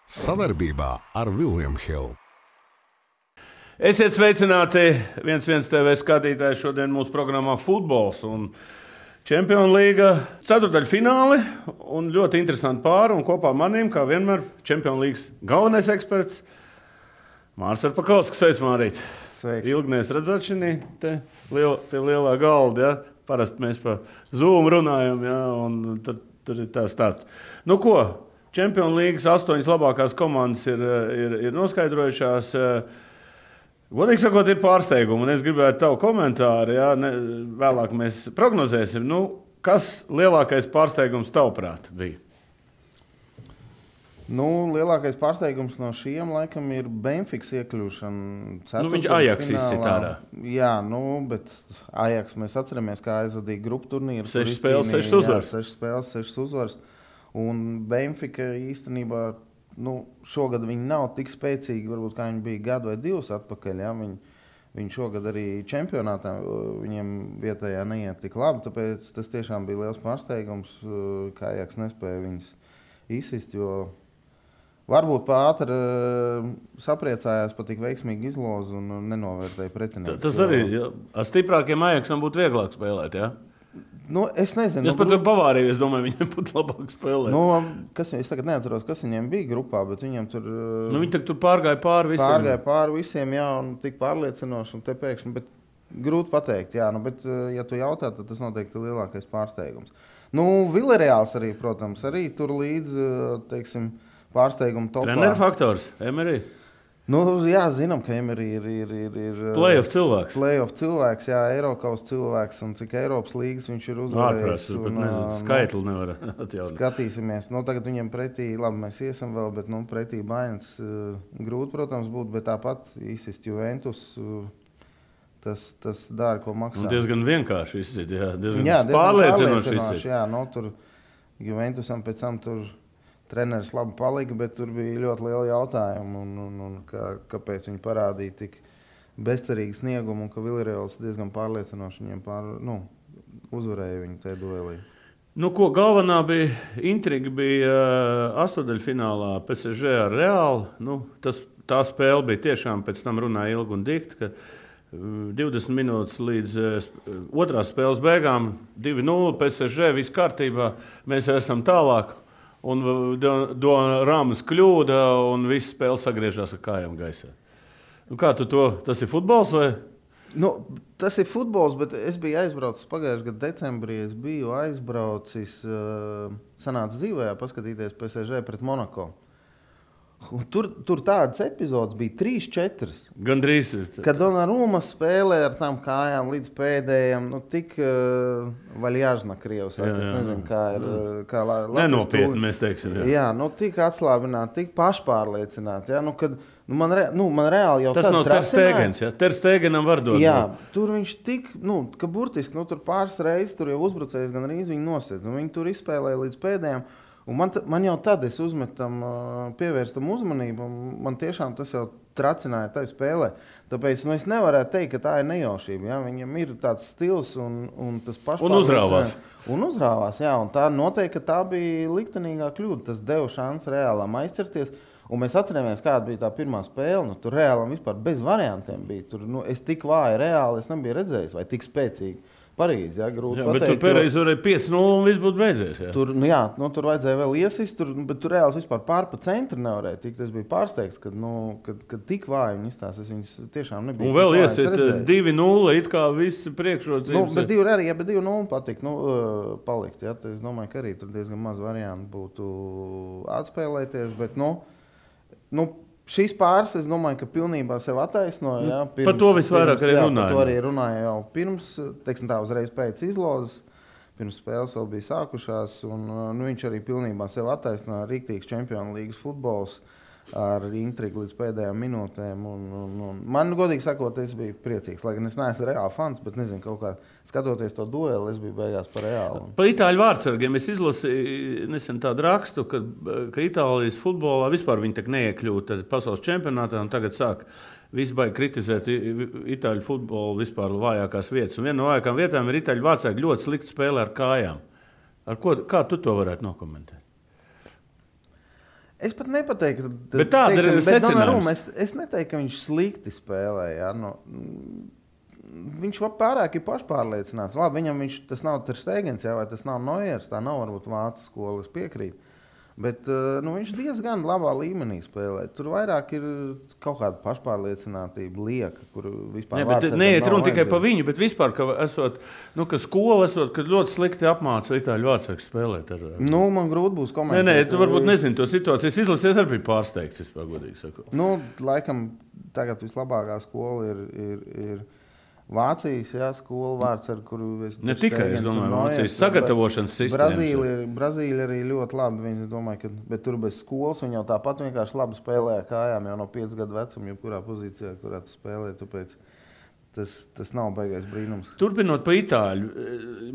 Sadarbībā ar William Hill. Esiet sveicināti 1-1 TV skatītāji. Šodien mūsu programmā futbols un Čempionu līga ceturtdaļfināli un ļoti interesanti pāri. Un kopā manīm, kā vienmēr, Čempionu līgas galvenais eksperts Mārs Verpakovskis. Sveiks, Mārīt! Sveiks! Ilgi mēs redzēšanī te pie lielā galda, ja? Parasti mēs pa Zoom runājam, ja? Un tur ir tā stāsts. Nu ko, Čempionu līgas 8 labākās komandas ir noskaidrojušās. Godīgi sakot, ir pārsteigumi, un es gribētu tavu komentāru, ja? Vēlāk mēs prognozēsim. Nu, kas lielākais pārsteigums tavuprāt bija? Nu, lielākais pārsteigums no šiem laikam ir Benfikas iekļūšana ceturtdaļfinālā. Viņš Ajax izsit ārā. Jā, bet Ajax mēs atceramies, kā aizvadīja grupu turnīru. 6 spēles, 6 uzvaras. 6 spēles, 6 uzvaras. Un Benfika īstenībā, šogad viņi nav tik spēcīgi, varbūt kā viņi bija gadu vai divus atpakaļ. Ja? Viņi šogad arī čempionātā viņiem vietējā neiet tik labi, tāpēc tas tiešām bija liels pārsteigums, ka Ajax nespēja viņus izsist, jo varbūt pātri sapriecājās par tik veiksmīgu izlozi un nenovērtēja pretinieku. Tas arī ar stiprākiem Ajaxam būtu vieglāk spēlēt, jā? Es nezinu. Es pat Bavāriju, es domāju, viņiem būtu labāk spēlēt. Es tagad neatceros, kas viņiem bija grupā, bet viņiem tur... viņi tur pārgāja pāri visiem. Pārgāja pāri visiem, jā, un tik pārliecinoši, un te pēkšņi, bet grūti pateikt, jā, bet ja tu jautā, tad tas noteikti ir lielākais pārsteigums. Villarreāls arī, protams, arī tur līdz, teiksim, pārsteigumu topā. Treneru faktors, Emery? Jā, zinām, ka Emery ir Playoff cilvēks. Playoff cilvēks, jā, Eiropas cilvēks, un cik Eiropas līgas viņš ir uzvarējis. Skaitli nevar atjaunot. Skatīsimies. Tagad viņiem pretī, labi, mēs iesim vēl, bet pretī Bayerns grūti, protams, būtu, bet tāpat izsist Juventus, tas dara, ko maksā. Un diezgan vienkārši izsist, jā. Diezgan pārliecinoši izsist. Jā, tur Juventusam pēc tam tur treneris labi palika, bet tur bija ļoti liela jautājuma, un kāpēc viņi parādīja tik bezcerīgu sniegumu, un ka Villarreāls diezgan pārliecinoši viņiem uzvarēja viņu tajā duelī. Galvenā intriga bija astotdaļfinālā PSG ar Reālu. Tā spēle bija tiešām, pēc tam runāja ilgi un dikti, ka 20 minūtes līdz otrās spēles beigām 2-0 PSG, viss kārtībā, mēs esam tālāk. Un Rāmas kļūda, un viss spēle sagriežās ar kājām gaisā. Kā tu to? Tas ir futbols vai? Tas ir futbols, bet es biju aizbraucis pagājušajā gada decembrī. Es biju aizbraucis, sanāca dzīvējā paskatīties PSG pret Monako. Tur tādas epizodes bija 3-4. Gandrīz. Kad Donnarumma spēlē ar tām kājām līdz pēdējiem, tik vaļāžna krievs. Es nezinu, kā ir. Nenopietni mēs teiksim. Jā, tik atslābināti, tik pašpārliecināti. Ja? Man reāli jau tas nav Ter Stegens, ja? Ter Stegenam var dot. Jā, tur viņš tik, ka burtiski, tur pāris reizes tur jau uzbrucējs gan arī viņi nosedz. Viņi tur izspēlēja līdz pēdējiem. Un man jau tad es uzmetam, pievērstam uzmanību, un man tiešām tas jau tracināja tai spēlē. Tāpēc es nevarētu teikt, ka tā ir nejaušība. Ja? Viņam ir tāds stils un tas pašpārliecināts. Un uzrāvās, jā. Un tā noteikti, ka tā bija liktenīgā kļūda. Tas deva šansu Reālam aizcerties. Un mēs atceramies, kāda bija tā pirmā spēle. Tur Reālam vispār bez variantiem bija. Tur, es tik vāju Reāli, es nebiju redzējis, vai tik spēcīgi. Parīzi, grūti pateikt. Bet tur Perez varēja 5-0 un viss būtu beidzies. Jā. Tur vajadzēja vēl iesist, bet tur Reāls vispār pār pa centru nevarēja tikt. Es biju pārsteigts, kad tik vāji viņi izstās. Es viņus tiešām nebiju. Un vēl iesiet 2-0, it kā visi priekšrocības. Bet 2-0 patikt, palikt. Ja? Es domāju, ka arī tur diezgan maz variantu būtu atspēlēties, bet šīs pāris, es domāju, ka pilnībā sev attaisnoja. Par to visvairāk arī runāja. Par to arī runāja jau pirms, uzreiz pēc izlozes. Pirms spēles vēl bija sākušās. Viņš arī pilnībā sev attaisnoja. Rīktīgs Čempionu līgas futbols ar intrigu līdz pēdējām minūtēm. Man, godīgi sakot, es biju priecīgs. Lai gan es neesmu Reāla fans, bet nezinu, kaut kā skatoties to dueli, es biju beigās par Reālu. Par itāļu vārdsargiem es izlasīju nesen tādu rakstu, ka Itālijas futbolā vispār viņi tak neiekļūt pasaules čempionātā un tagad sāk visi baigi kritizēt itāļu futbolu vispār vājākās vietas. Un viena no vājākām vietām ir itāļu vārdsargi ļoti slikti spēlē ar kājām. Kā tu to varētu nokomentēt? Es pat nepateiktu, Bet tāda ir secinājums. Es neteiktu, ka viņš slikti spēlē. Ja? Viņš pārāk ir pašpārliecināts. Labi, viņam tas nav Ter Stegens, vai tas nav Neuers, tā nav varbūt Vācijas skola, es piekrītu. Bet viņš diezgan labā līmenī spēlē. Tur vairāk ir kaut kāda pašpārliecinātība, lieka, kur vispār neiet runa tikai par viņu, bet vispār, ka skola esot, kad ļoti slikti apmāca itāļu vārdsargus spēlēt. Man grūti būs komentēt. Nē, tu varbūt nezini to situāciju. Es izlasies arī pārsteigts, vispār godīgi sakot. Laikam tagad vislabākā skola ir Vācijas skola vārds, ar kuru es ne tikai, es domāju, Vācijas sagatavošanas sistēmas. Brazīlija arī ļoti labi. Viņi domāju, bet tur bez skolas viņi jau tāpat vienkārši labi spēlēja kājām jau no 5 gadu vecuma, jebkurā pozīcijā, kurā tu spēlē. Tāpēc tas nav baigais brīnums. Turpinot pa itāļu,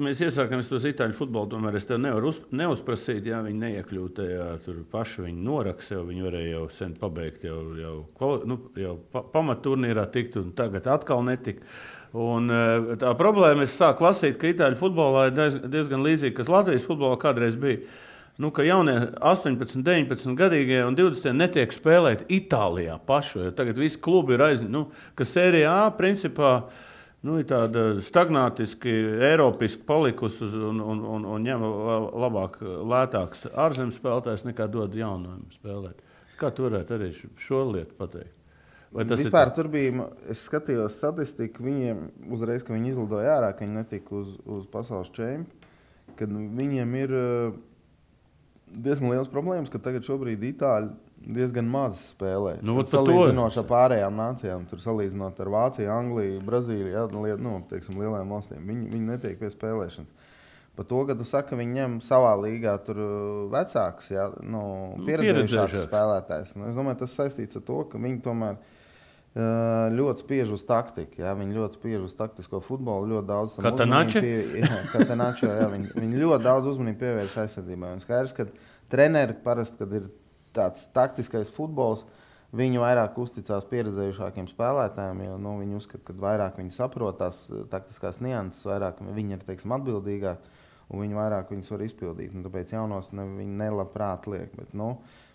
mēs iesākamies tos itāļu futbolu, tomēr es tev nevaru neuzprasīt, ja viņi neiekļūt tajā, tur paši viņi noraks, jau viņi varēja jau sen pabeigt, jau pamatturnīrā tikt un tagad atkal netika. Un tā problēma, es sāku lasīt, ka itāļu futbolā ir diezgan līdzīgi, kas Latvijas futbolā kādreiz bija. Ka jaunie 18, 19 gadīgie un 20 netiek spēlēt Itālijā pašu. Tagad visi klubi ir ka Sērijā A principā ir tāda stagnātiski, eiropiski palikusi un ņem labāk, lētāks ārzemes spēlētājs nekā dod jaunajiem spēlēt. Kā tu varētu arī šo lietu pateikt? Vispār tur bija, es skatījos statistiku, viņiem uzreiz, ka viņi izlidoja ārā, ka viņi netika uz pasaules čempi, kad viņiem ir diezgan liels problēmas, ka tagad šobrīd Itāļi diezgan maz spēlē. Salīdzinot ar pārējām nācijām, tur salīdzinot ar Vāciju, Angliju, Brazīliju, lielajām valstīm, viņi netiek pie spēlēšanas. Par to, ka tu saki, ka viņi ņem savā līgā tur vecākus, pieredzējušākus spēlētājus. Es domāju, tas saistīts ar to, ka viņi tomēr ļoti spiež uz taktiku. Ja? Viņi ļoti spiež uz taktisko futbolu. Ļoti daudz viņi ļoti daudz uzmanību pievērš aizsardzībai. Un skaidrs, ka treneri parasti, kad ir tāds taktiskais futbols, viņi vairāk uzticās pieredzējušākiem spēlētājiem, jo viņi uzskata, ka vairāk viņi saprot tās taktiskās nianses, vairāk viņi ir atbildīgāki un viņi vairāk viņus var izpildīt. Tāpēc jaunos viņi nelabprāt liek. Bet,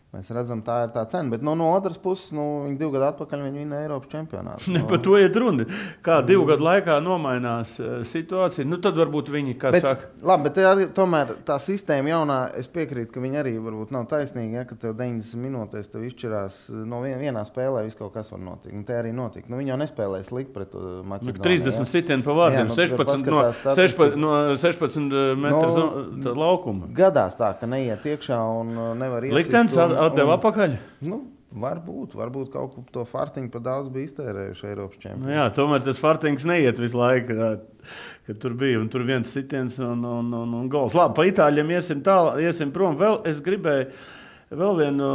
mēs redzam, tā ir tā cena. Bet no otras puses, viņi 2 gadu atpakaļ vinēja Eiropas čempionātu. Par to iet runa. Kā 2 gadu laikā nomainās situācija, tad varbūt viņi saka. Labi, bet tomēr tā sistēma jaunā, es piekrītu, ka viņi arī varbūt nav taisnīgi, ja, ka tev 90 minūtēs tev izšķirās no vienā spēlē viss kaut kas var notikt. Un te arī notika. Viņi jau nespēlēja slikt pret Maķedoniju. 30 sitienu pa vārdiem, 16 metru laukuma. Gadās tā, ka neiet iekšā un nevar iesist. Liktenis atdeva atpakaļ? Varbūt kaut ko to fartiņu par daudz bija iztērējuši Eiropas čempioni. Jā, tomēr tas fartiņš neiet visu laiku, kad tur bija. Un tur viens sitiens un gols. Labi, pa itāļiem iesim prom. Es gribēju vēl vienu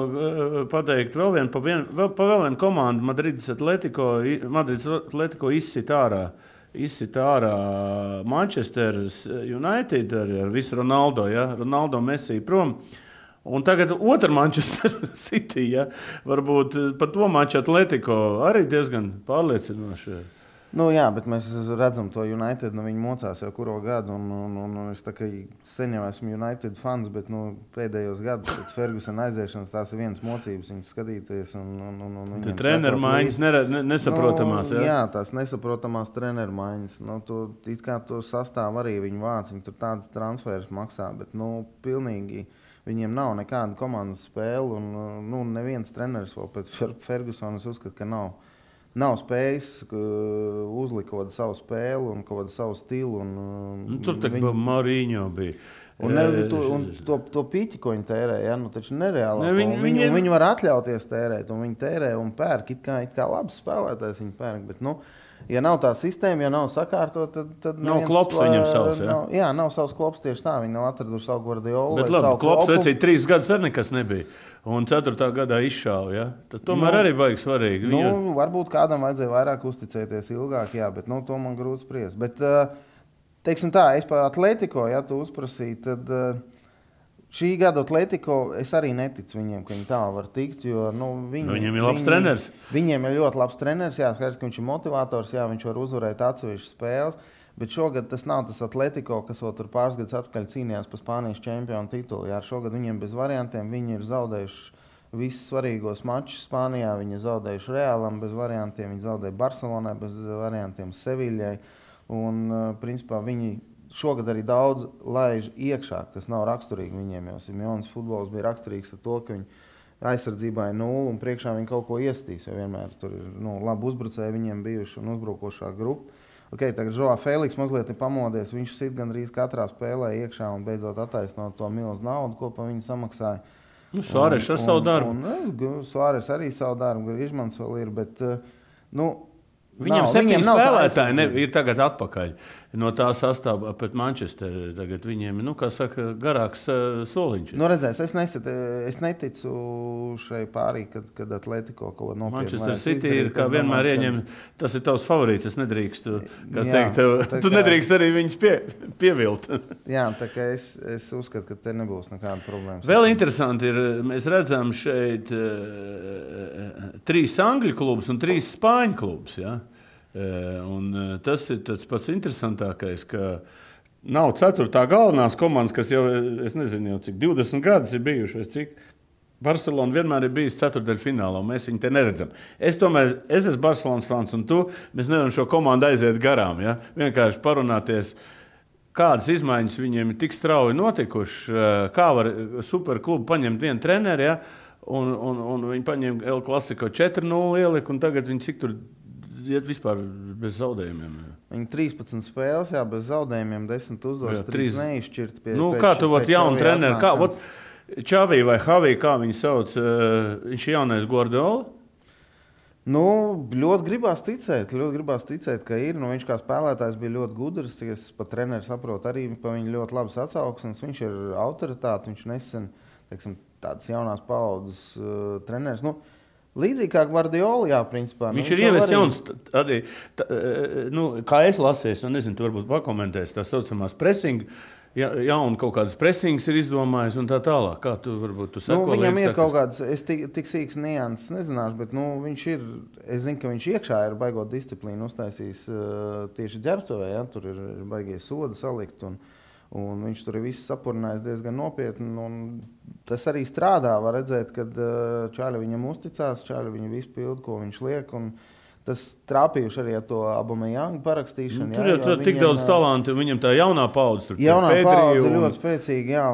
pateikt, vēl vienu komandu Madrides Atletico izsit ārā Manchester United ar visu Ronaldo, Ronaldo Messi prom. Un tagad otra Manchester City, varbūt par to maču Atletico arī diezgan pārliecinoši. Jā, bet mēs redzam to United, viņi mocās jau kuro gadu, un es tā kā sen jau esmu United fans, bet pēdējos gadus pēc Fergusona aiziešanas tās ir vienas mocības, viņas skatīties. Treneru maiņas nesaprotamās. Jā, tās nesaprotamās treneru maiņas. It kā to sastāv arī viņu vāc, viņi tur tādas transferas maksā, bet pilnīgi viņiem nav nekāda komandas spēle, un neviens treneris vēl pēc Fergusona uzskata, ka nav spējis uzlikt savu spēli un kaut kādu savu stilu. Tur tā kā Mourinho bija. Un to pīķi, ko viņi tērē, taču nereāli. Viņi var atļauties tērēt, un viņi tērē un pērk. It kā labs spēlētājs viņi pērk, bet ja nav tā sistēma, ja nav sakārtot, tad nav klops viņam savs. Nav savs klops tieši tā. Viņi nav atraduši savu Guardiolu. Bet labi, klops vecīt 3 gadus arī nekas nebija. Un 4. gadā izšāva. Tad tomēr arī baigi svarīgi. Varbūt kādam vajadzēja vairāk uzticēties ilgāk, bet to man grūti spriest. Bet, teiksim tā, es par Atletico, ja tu uzprasīji, tad šī gada Atletico es arī neticu viņiem, ka viņi tā var tikt, jo viņiem ir labs treneris. Viņiem ir ļoti labs treneris, skaidrs, ka viņš ir motivators, viņš var uzvarēt atsevišķas spēles, bet šogad tas nav tas Atletico, kas vēl tur pāris gadus atpakaļ cīnījās par Spānijas čempionu titulu. Šogad viņiem bez variantiem, viņi ir zaudējuši visus svarīgos mačus Spānijā. Viņi zaudējuši Realam bez variantiem, viņi zaudēja Barcelonai bez variantiem, Seviļai. Un, principā, viņi šogad arī daudz laiž iekšā, kas nav raksturīgi viņiem, jo Simeones futbols bija raksturīgs ar to, ka viņi aizsardzībā ir 0 un priekšā viņi kaut ko iestīs, jo vienmēr tur ir labi uzbrucēji viņiem bijuši un uzbrukošā grupa. Tagad Joao Feliks mazliet ir pamodies, viņš sit gandrīz katrā spēlē iekšā un beidzot attaisnot to milzu naudu, ko pa viņu samaksāja. Suāres ar savu darbu. Suāres arī savu darbu, Griezmanns vēl ir, bet Viņam 7 spēlētāji ir tagad atpakaļ no tā sastāvā pret Manchesteru. Tagad viņiem ir, kā saka, garāks soliņš. Redzēs, es neticu šai pārī, kad Atletico kaut ko nopietni. Manchester City ir, kā vienmēr ieņem, tas ir tavs favorīts, es nedrīkstu, tu nedrīkst arī viņus pievilt. Jā, tā kā es uzskatu, ka te nebūs nekāda problēma. Vēl interesanti ir, mēs redzam šeit 3 angļu klubus un 3 spāņu klubus, ja? Un tas ir tas pats interesantākais, ka nav 4. galvenās komandas, kas jau, es nezinu, jau cik 20 gadus ir bijuši, vai cik. Barcelona vienmēr ir bijis ceturtdaļfinālā, un mēs viņu te neredzam. Es esmu Barcelonas fans, un mēs nevaram šo komandu aiziet garām, ja? Vienkārši parunāties, kādas izmaiņas viņiem ir tik strauji notikuši, kā var superklubu paņemt vienu treneri, ja? Un viņi paņem El Clasico 4-0 ieliku, un tagad viņi cik tur iet vispār bez zaudējumiem. Viņi 13 spēles, jā, bez zaudējumiem, 10 uzvaras, 3 neizšķirt. Kā tu jaunu treneri, kā Čavī vai Havī, kā viņi sauc, viņš ir jaunais Guardiola? Ļoti gribās ticēt, ka ir. Viņš kā spēlētājs bija ļoti gudrs, es pat treneri saprotu arī pa viņu ļoti labas atsauksmes. Viņš ir autoritāte, viņš nesen, teiksim, tādas jaunās paaudzes treneris. Līdzīgi kā Guardiola, jā, principā. Viņš ir ievies jauns, kā es lasīju, nezinu, tu varbūt pakomentēsi, tā saucamās pressing, jaunu kaut kādas pressings ir izdomājis un tā tālāk. Kā tu varbūt sako? Viņam ir kaut kāds, es tik sīks nianses nezināšu, bet viņš ir, es zinu, ka viņš iekšā ir baigot disciplīnu uztaisījis tieši ģērbtuvē, ja, tur ir baigie sodi salikt un viņš tur ir visu sapurinājis diezgan nopietni. Tas arī strādā, var redzēt, kad čāļi viņam uzticās, čāļi viņu visu pildu, ko viņš liek. Tas trāpījuši arī ar to Aubameyanga parakstīšanu. Tur jau tik daudz talantu, viņam tā jaunā paudze. Jaunā paudze ir ļoti spēcīga, jā.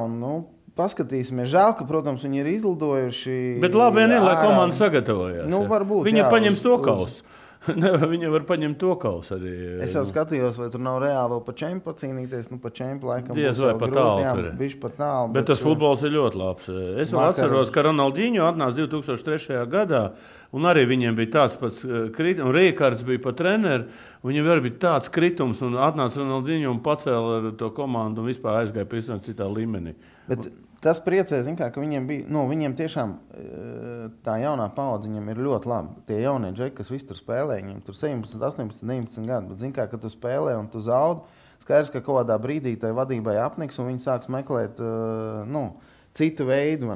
Paskatīsimies. Žēl, ka, protams, viņi ir izlidojuši. Bet labi vien ir, lai komanda sagatavojās. Varbūt, viņa paņems to kausu. Viņa var paņemt to kausu arī. Es jau skatījos, vai tur nav reāli vēl pa čempu cīnīties. Pa čempu laikam diez vai pa tālu. Bet tas futbols ir ļoti labs. Es vēl atceros, ka Ronaldinho atnāca 2003. gadā, un arī viņiem bija tāds pats kritums, un Rīkārds bija pa treneri, un viņam arī bija tāds kritums, un atnāca Ronaldinho un pacēla ar to komandu un vispār aizgāja pēc citā līmenī. Bet tas priecē, ka viņiem bija, viņiem tiešām tā jaunā paudze viņiem ir ļoti labi. Tie jaunie džeki, kas visi tur spēlē, viņiem tur 17, 18, 19 gadu, bet kad tu spēlē un tu zaudi, skaidrs, ka kaut kādā brīdī tai vadībai apniks un viņi sāks meklēt, citu veidu,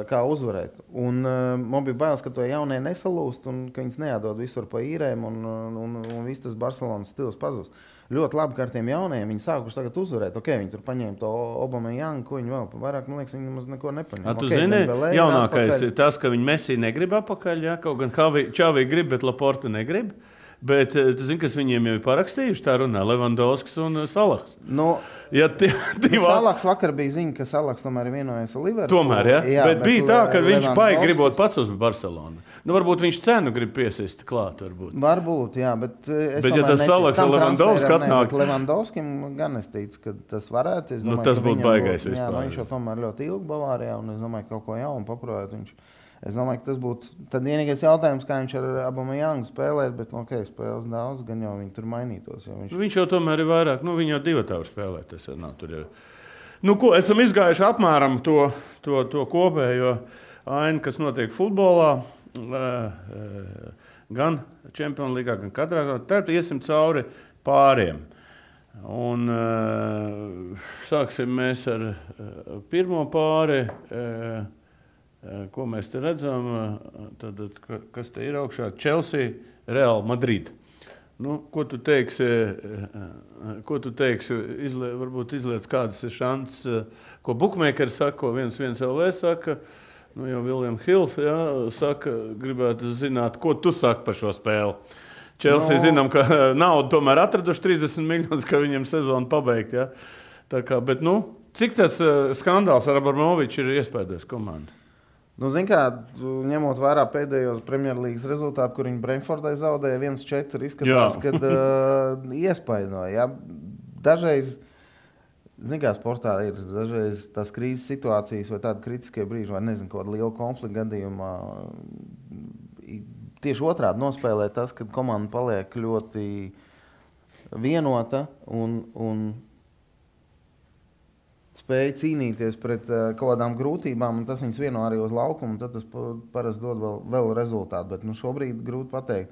kā uzvarēt. Un man bija bailes, ka to jaunie nesalūst un ka viņas neatdod visur pa īrēm un viss tas Barcelonas stils pazūst. Ļoti labi, ka ar tiem jaunajiem viņi sākuši tagad uzvarēt. Viņi tur paņēma to Aubameyanga, ko viņi vēl vairāk, man liekas, viņi nemaz neko nepaņēma. Tu zini, jaunākais ir tas, ka viņi Messi negrib apakaļ, ja? Kaut gan Čavī grib, bet Laporta negrib. Bet tu zini, kas viņiem jau ir parakstījuši, tā runā Levandovskis un Salahs. Salahs vakar bija ziņa, ka Salahs tomēr ir vienojies ar Liverpoolu. Tomēr, ja? Jā, bet bija tā, ka viņš baigi gribot pats uz Barcelonu. Varbūt viņš cenu grib piesist klāt. Varbūt, jā, bet ja tas Salahs un Levandovskis atnāk. Levandovskim gan es ticu, ka tas varētu. Tas būtu baigais vispār. Jā, viņš jau tomēr ļoti ilgi Bavārijā un es domāju, ka kaut ko jaunu paprojāt viņš. Es domāju, ka tas būtu tad vienīgais jautājums, kā viņš ar Aubameyangu spēlēt, bet spēles daudz, gan jau viņi tur mainītos. Viņš jau tomēr ir vairāk, viņa jau 2 tavu spēlēt. Tas nav tur jau. Esam izgājuši apmēram to kopējo ainu, kas notiek futbolā, gan Čempionu līgā, gan katrā. Tad iesim cauri pāriem. Un sāksim mēs ar pirmo pāri. Ko mēs te redzam, tad, kas te ir augšā? Chelsea, Real Madrid. Ko tu teiksi, varbūt izliec kādas ir šances, ko bookmakeri saka, ko 1-1 LV saka. Nu, jau Viljams Hills saka, gribētu zināt, ko tu saki par šo spēli. Chelsea zinām, ka naudu tomēr atraduši 30 miljonus, ka viņiem sezonu pabeigt. Ja? Tā kā, bet, cik tas skandāls ar Abramoviču ir iespējams komanda? Zin kā, ņemot vērā pēdējos Premjerlīgas rezultātu, kur viņi Brentfordai zaudēja 1-4, izskatās, kad iespaidoja. Ja? Dažreiz, zin kā, sportā ir dažreiz tās krīzes situācijas vai tādi kritiskie brīži, vai nezinu, kaut kāda liela konflikta gadījumā. Tieši otrādi nospēlē tas, kad komanda paliek ļoti vienota un spēja cīnīties pret kaut kādām grūtībām, un tas viņus vieno arī uz laukumu, un tad tas parasti dod vēl rezultātu. Bet šobrīd grūti pateikt.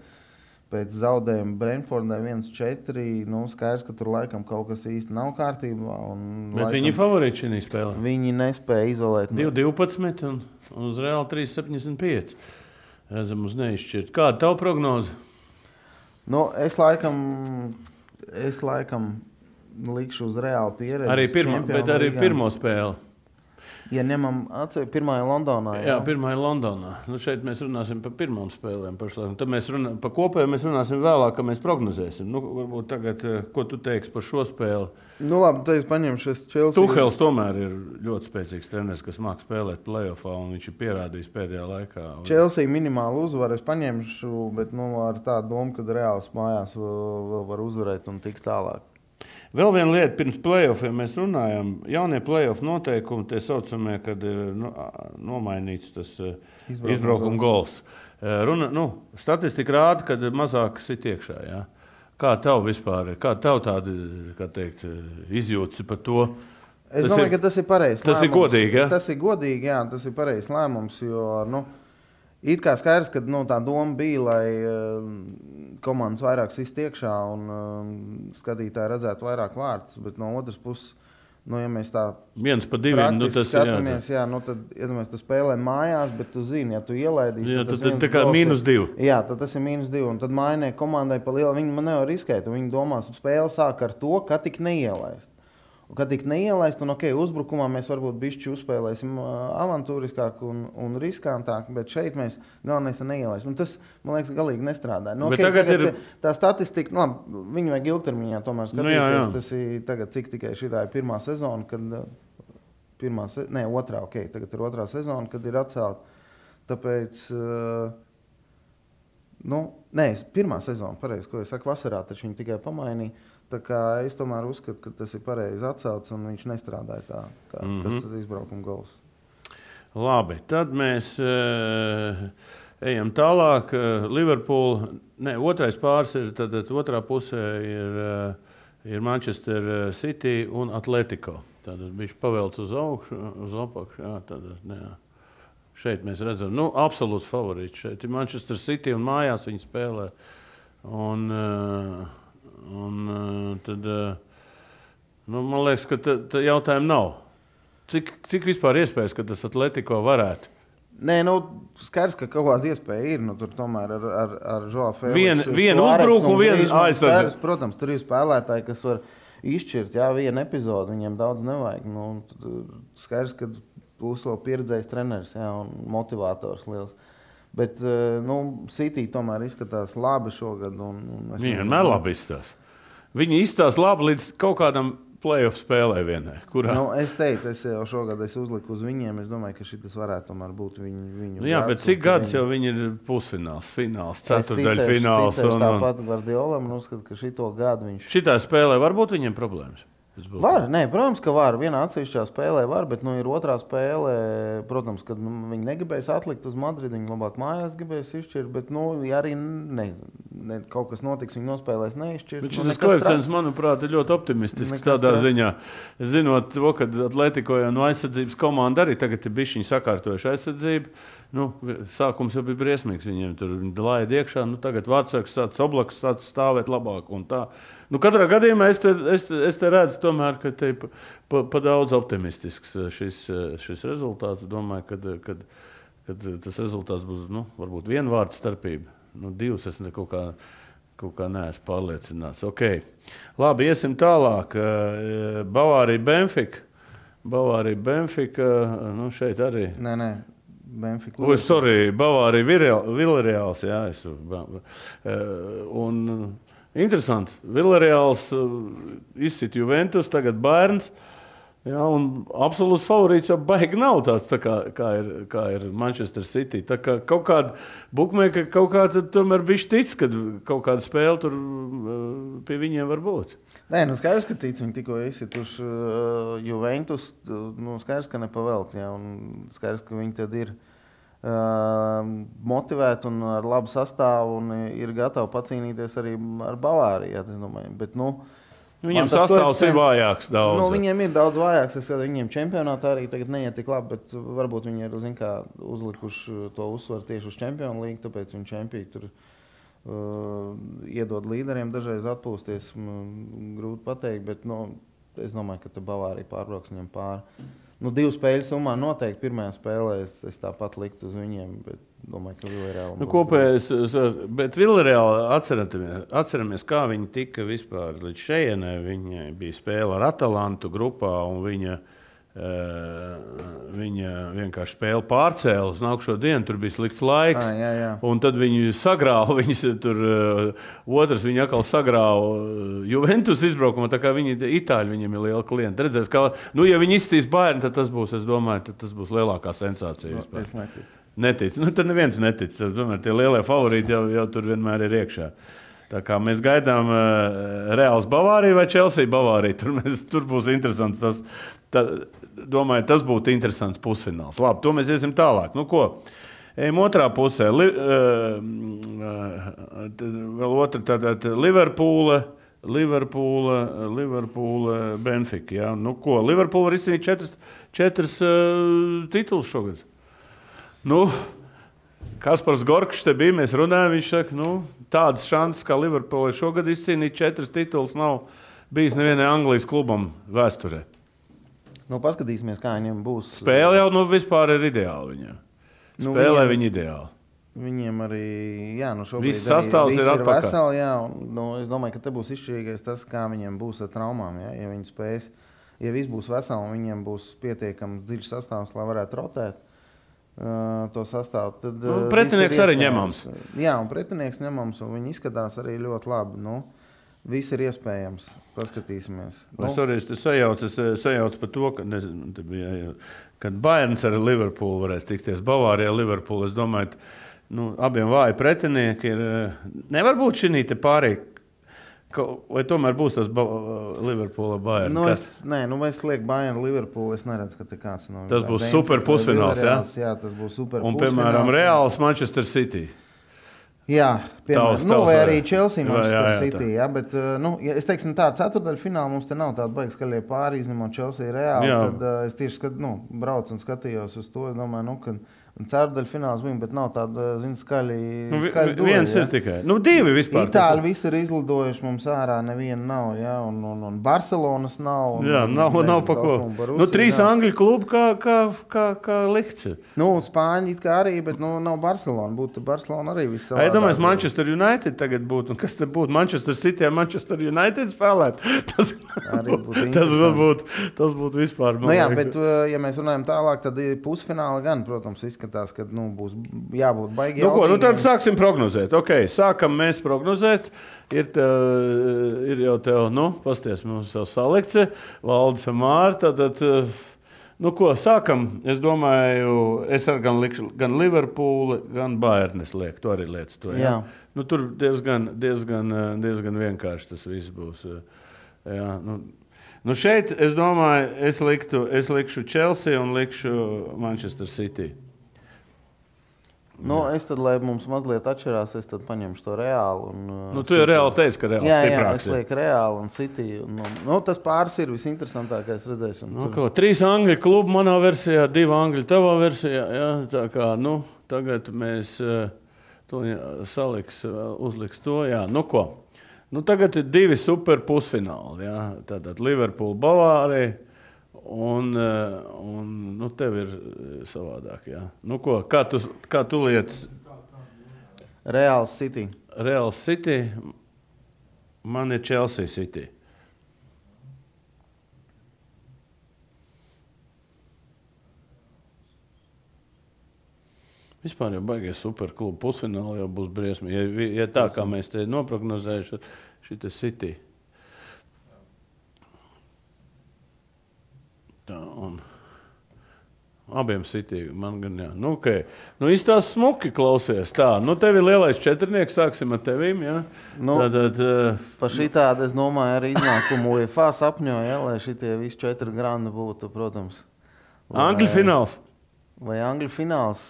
Pēc zaudējuma Brentfordai 1-4, skaidrs, ka tur laikam kaut kas īsti nav kārtībā. Bet laikam, viņi favorīti šī spēlē? Viņi nespēja izolēt. 2-12 un uz Reāli 3-75. Redzam uz neizšķirt. Kāda tavu prognoze? Es laikam likšu uz Reāli pieredzi. Bet arī pirmo spēli. Ja ņemam pirmā ir Londonā. Jā, pirmā ir Londonā. Šeit mēs runāsim par pirmām spēlēm. Tad mēs par kopēju mēs runāsim vēlāk, ka mēs prognozēsim. Varbūt tagad, ko tu teiksi par šo spēli? Labi, tad es paņemšu šis Chelsea. Tuhels tomēr ir ļoti spēcīgs treneris, kas māk spēlēt playoffā, un viņš ir pierādījis pēdējā laikā. Chelsea minimālu uzvaru es paņemšu, bet ar tādu domu, ka Reāls mājās vēl var uzvarēt un tikt tālāk. Vēl viena lieta, pirms playoffiem mēs runājam, jaunie playoff noteikumi, tie saucamie, kad ir nomainīts tas izbraukuma gols. Statistika rāda, kad mazāk sit iekšā. Ja? Kā tev vispār, kā tev tādi, kā teikt, izjūtas par to? Es domāju, ka tas ir pareizs lēmums. Tas ir godīgi, ja? Tas ir godīgi, jā, tas ir pareizs lēmums, jo, it kā skaidrs, ka tā doma bija, lai komandas vairāk sist iekšā un skatītāji redzētu vairāk vārtus, bet no otras puses, ja mēs tā 1-2, tas skatāmies, tad, tas spēlē mājās, bet tu zini, ja tu ielaidīsi, tad tas tā kā -2. Jā, tad tas ir -2, un tad mainē komandai pa lielu, viņi man nevar riskēt, un viņi domās, spēle sāk ar to, ka tik neielaist. Un, kad tik neielaist, un uzbrukumā mēs varbūt bišķi uzspēlēsim avantūriskāk un riskantāk, bet šeit mēs galvenais ir neielaist. Un tas, man liekas, galīgi nestrādā. Tagad ir tā statistika, viņi vajag ilgtermiņā tomēr skatīties. Jā. Tas ir tagad, cik tikai šitā ir pirmā sezona, kad otrā, tagad ir otrā sezona, kad ir atcelt. Tāpēc, pirmā sezona, pareizi, ko es saku, vasarā, taču viņi tikai pamainīja. Tā kā es tomēr uzskatu, ka tas ir pareizi atcelts un viņš nestrādāja tā, kā tas izbraukuma gols. Labi, tad mēs ejam tālāk. Liverpool, otrais pāris ir, tad otrā pusē ir Manchester City un Atletico. Tad viņš pavelc uz augšu, uz apakšu. Jā, šeit mēs redzam, absolūts favorīts. Šeit ir Manchester City un mājās viņi spēlē. Un tad, man liekas, ka tā jautājuma nav. Cik vispār iespējas, ka tas Atletico varētu? Skaidrs, ka kaut kāda iespēja ir. Tur tomēr ar Joao Felix. Vienu uzbrukumu, vienu aizsardzību. Protams, tur ir spēlētāji, kas var izšķirt vienu epizodu. Viņiem daudz nevajag. Skaidrs, ka būs vēl pieredzējis treneris un motivators liels. Bet City tomēr izskatās labi šogad. Viņi vienmēr labi izskatās. Viņi izskatās labi līdz kaut kādam playoff spēlē vienai. Es teicu, es jau šogad uzliku uz viņiem. Es domāju, ka šis varētu tomēr būt viņu bet cik gads jau viņi ir pusfināls, fināls, ceturtdaļfināls? Es tāpat Guardiolam uzskatu, ka šito gadu viņš... Šitā spēlē var būt viņiem problēmas? Var, protams, ka var. Vienā atsevišķā spēlē var, bet ir otrā spēlē, protams, kad viņi negribēs atlikt uz Madridu, viņi labāk mājās gribēs izšķirt, bet ja arī kaut kas notiks, viņi nospēlēs neizšķirt. Bet šis koeficients, manuprāt, ir ļoti optimistisks tādā ziņā. Zinot to, ka Atletico jau no aizsardzības komanda arī tagad ir bišķiņi sakārtojuši aizsardzību. Sākums jau bija briesmīgs. Viņiem tur laida iekšā, tagad Vārtsargs tāds Oblaks tāds stāvēt labāk un tā. Katrā gadījumā es te redzu tomēr, ka te pa daudz optimistisks šis rezultāts. Domāju, ka tas rezultāts būs, varbūt viena vārda starpība. Divas es kaut kā neesmu pārliecināts. Okay. Labi, iesim tālāk. Bavārija Benfica. Šeit arī. Benfica. Oi, sorry, Bavārija Villarreāls, jā. Un interesanti, Villarreāls izsit Juventus, tagad Bayerns. Jā, un absolūts favorīts jau baigi nav tāds, tā kā ir Manchester City. Tā kā kaut kāda bukmēka kaut kāda tomēr bišķi tic, kad kaut kāda spēle tur pie viņiem var būt. Nē, nu skaidrs, ka tic, viņi tikko izsituši Juventus, nu skaidrs, ka nepavēlt, jā, un skaidrs, ka viņi tad ir motivēti un ar labu sastāvu un ir gatavi pacīnīties arī ar Bavāriju, jā, es domāju, bet, nu, viņiem sastāvs ir vājāks daudz. Nu, viņiem ir daudz vājāks. Es skatu, viņiem čempionātā arī tagad neiet tik labi, bet varbūt viņi ir uzlikuši to uzsvaru tieši uz Čempionu līgu, tāpēc viņi čempiju tur iedod līderiem dažreiz atpūsties. Grūti pateikt, bet es domāju, ka Bavārija pārbrauks viņam pāri. 2 spēļu summā noteikti pirmajā spēlē es tāpat liktu uz viņiem, bet domāju, ka Villarreāli. Kopējais, bet Villarreāli atceramies, kā viņi tika vispār līdz šejienai. Viņa bija spēle ar Atalantu grupā, un viņa vienkārši spēli pārcēla uz nākušo dienu. Tur bija slikts laiks, jā. Un tad viņi sagrāva. Otrs viņa atkal sagrāva Juventus izbraukumā, tā kā Itāļi viņiem ir liela klienta. Redzēs, kā, ja viņi izstīs Bayernu, tad tas būs, es domāju, tas būs lielākā sensācija. Es neticu. Netic. Tad neviens netic. Tomēr tie lielie favorīti jau tur vienmēr ir iekšā. Tā kā mēs gaidām Reāls Bavāriju vai Chelsea Bavāriju. Tur būs interesants. Domāju, tas būtu interesants pusfināls. Labi, to mēs iesim tālāk. Nu ko? Ejam otrā pusē. Vēl otra tātad Liverpoola, Benfica. Ja? Nu ko? Liverpoola var izcīnīt 4 titulus šogad. Kaspars Gorkšs te bija, mēs runājam, viņš saka, tādas šansas, kā Liverpoola šogad izcīnīt 4 titulus, nav bijis nevienai Anglijas klubam vēsturē. Paskatīsimies, kā viņiem būs. Spēle jau vispār ir ideāli viņiem. Spēlē viņi ideāli. Viņiem arī, šobrīd viss sastāvs ir atpakaļ. Veseli, es domāju, ka te būs izšķirīgais tas, kā viņiem būs ar traumām. Ja viņi spēs, ja viss būs veseli, viņiem būs pietiekams dziļš sastāvs, lai varētu rotēt to sastāvu. Tad, pretinieks arī ņemams. Jā, un pretinieks ņemams, un viņi izskatās arī ļoti labi. Viss ir iespējams. Paskatīsimies. Es sajaucu par to, kad Bayerns ar Liverpoolu varēs tikties. Bavārija ar Liverpoolu. Es domāju, abiem vāji pretinieki ir. Nevar būt šī te pārējā. Vai tomēr būs tas Liverpoola Bayern? Es lieku Bayern Liverpoolu. Es neredzu, ka te kāds nav. Tas būs super pusfināls, jā? Jā, tas būs super pusfināls. Un, piemēram, Reāls Manchester City. Jā, piemēram, vai arī Chelsea Manchester City. Jā, bet, es teiksim tā, ceturtdaļfināla mums te nav tāda baigi skaļie pāri, izņemot Chelsea Reāli. Tad es tieši braucu un skatījos uz to. Es domāju, ka ceturdaļfināls bija, bet nav tāda, skaļi dueli. Viens ir tikai. 2 vispār. Itāļi visi ir izlidojuši mums ārā, neviena nav, jā, un Barcelonas nav. Nav pa ko. 3 Angļu klubi kā likts. Spāņi it kā arī, bet nav Barcelona. Būtu Barcelona arī viss savādāk. Es domāju, Manchester United tagad būtu. Kas tad būtu? Manchester City un Manchester United spēlēt? Tas būtu vispār. Jā, bet ja mēs runājam tālāk, tad pusfināli gan, protams, izskatās, ka būs jābūt baigi jautīgi. Tad sāksim prognozēt. Sākam mēs prognozēt. Ir jau tev, pasties mums jau salikts, Valdis un Mārta. Sākam. Es domāju, es ar gan Liverpoolu, gan Bayernes lieku. Tu arī lietas to. Jā. Tur diezgan vienkārši tas viss būs. Jā, šeit, es domāju, es likšu Chelsea un likšu Manchester City. Es tad, lai mums mazliet atšķirās, es tad paņemšu to Reālu. Tu jau Reāli teici, ka Reāls stiprāks. Jā, es lieku Reālu un City. Tas pāris ir visinteresantākais redzēsim. 3 Angļu klubu manā versijā, 2 Angļu tavā versijā. Jā, tā kā, tagad mēs to uzliks to. Jā, tagad ir 2 super pusfināli. Jā. Tātad Liverpool, Bavārija. Un tev ir savādāk, jā. Kā tu lietas? Reāls City. Reāls City. Man ir Chelsea City. Vispār jau baigies superklubu pusfināli jau būs briesmi. Ja tā kā mēs te noprognozējuši, šī City. Tā, un abiem City, man gan jā. Nu, okay. Nu, izstās smuki klausies. Tā, nu, tev ir lielais četrnieks, sāksim ar tevīm, jā? Nu, pa šitādi, es domāju, arī iznākumu UEFA sapņoja, lai šitie visi 4 grandi būtu, protams. Angļu fināls. Vai Angļu fināls?